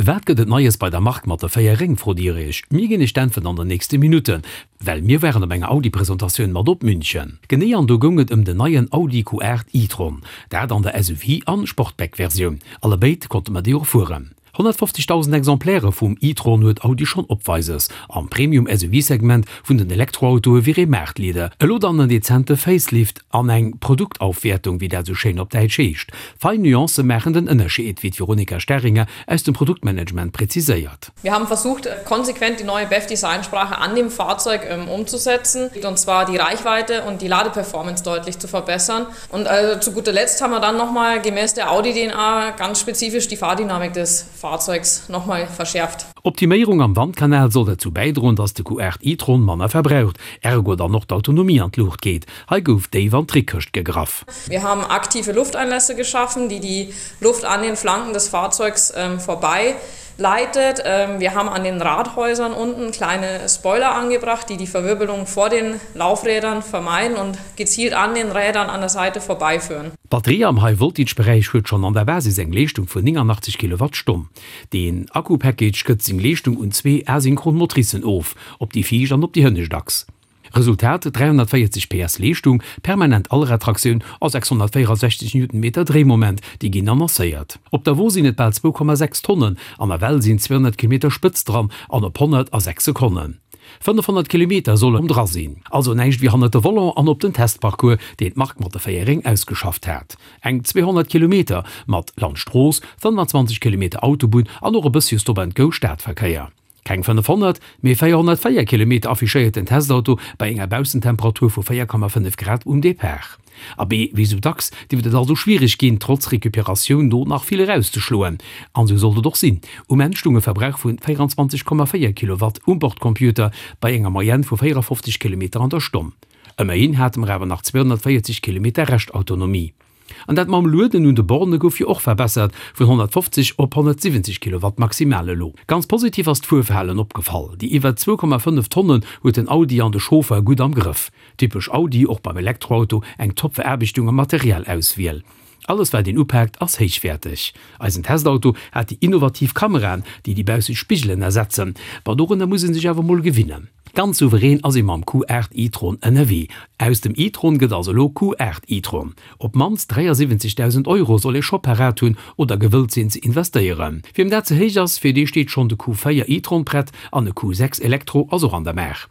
Wat gëtt et Neies bei der Mark mat de 4 Réng, frot Dir Iech? Mir ginn Iech d'Äntwert an den nächste Minutten, well mir waren op enger Audi-Presentatioun mat op München. Genee an do goung et ëm den neien Audi Q8 e-tron, dat an der SUV an Sportback-Versioun. Allebéid konnte mer déi och fueren. 150.000 Exemplaire vum e-tron huet Audi schonn opweises. Am Premium-SUV-Segment vun den Elektroautoe wier ee Maartleader. Elo dann en dezente Facelift an eng Produktaufwertung, wéi dat esou schéin op Däitsch heescht. Fein Nuancë maachen den Ënnerscheed, wéi d'Veronika Staringer aus dem Produktmanagement präziséiert. Wir haben versucht, konsequent die neue BEV-Designsprache an dem Fahrzeug umzusetzen, und zwar die Reichweite und die Ladeperformance deutlich zu verbessern. Und also zu guter Letzt haben wir dann nochmal gemäß der Audi-DNA ganz spezifisch die Fahrdynamik des Fahrzeugs nochmal verschärft. Optiméierung am Wandkanal soll derzou bäidroen, dass de Q8 e-tron manner verbraucht, ergo dann och d'Autonomie an d'Luucht geet. Hei gouf déif an d'Trickkëscht gegraff. Wir haben aktive Lufteinlässe geschaffen, die die Luft an den Flanken des Fahrzeugs vorbei leitet. Wir haben an den Rathäusern unten kleine Spoiler angebracht, die die Verwirbelung vor den Laufrädern vermeiden und gezielt an den Rädern an der Seite vorbeiführen. D'Batterie am High-Voltage-Beräich huet schonn an der Basis eng Leeschtung vun 89 Kilowattstonn. Den Akku-Package gëtt seng Leeschtung un zwee asynchron Motricen of, op déi viischt an op déi hënnescht Achs. Resultat, 340 PS Leeschtung, permanent Allradtraktioun a 664 Newtonmeter Dréimoment, déi ginn annoncéiert. Op der Wo sinn et bal 2,6 Tonnen an nawell sinn 200 Kilometer spëtz dran an op 100 a 6 Sekonnen. 500 Kilometer sollen dra sinn. Also näischt wéi hannert de Volant an op den Testparcours, deen d'Mark mat de 4 Réng ausgeschafft hat. Eng 200 Kilometer mat Landstrooss, 25 Kilometer Autobunn an och e bëssche Stop-and-Go Stadverkéier. Keng 500, mee 404 Kilometer affichéiert den Testauto bei enger Baussentemperatur vu 4,5 Grad um Depart. Abee, wéi sou dacks dierft et also schwiereg ginn, trotz Recuperatioun do nach vill erauszeschloen. An sou sollt et och sinn. Um Enn stung e Verbrauch vu 24,4 Kilowatt um Bordcomputer bei enger Moyenne vu 54 Kilometer an der Stonn. Ëmmerhin hate mer awer nach 240 Kilometer Reschtautonomie. An dat mam Lueden un de Borne gouf jo och verbessert, vun 150 op 170 Kilowatt maximal elo. Ganz positiv ass d'Fuerverhalen opgefall, déi iwwer 2,5 Tonnen huet den Audi an de Chauffer gutt am Grëff. Typesch Audi, och beim Elektroauto eng top Veraarbechtung a Materialauswiel. Alles wat een upaakt ass héichwäerteg. Eisen Testauto hat déi innovativ Kameraen, déi déi bausseg Spigelen ersetzen. Ma dorunner muss ee sech awer mol gewinnen. Ganz souverän ass ee mam Q8 e-tron ënnerwee. Aus dem e-tron gëtt also elo Q8 e-tron. Op d'mannst 73.000 Euro soll ee scho parat hunn oder gewëllt sinn ze investéieren. Wiem dat ze héich ass, fir dee steet schonn de Q4 e-tron prett an e Q6 Elektro ass och an der Maach.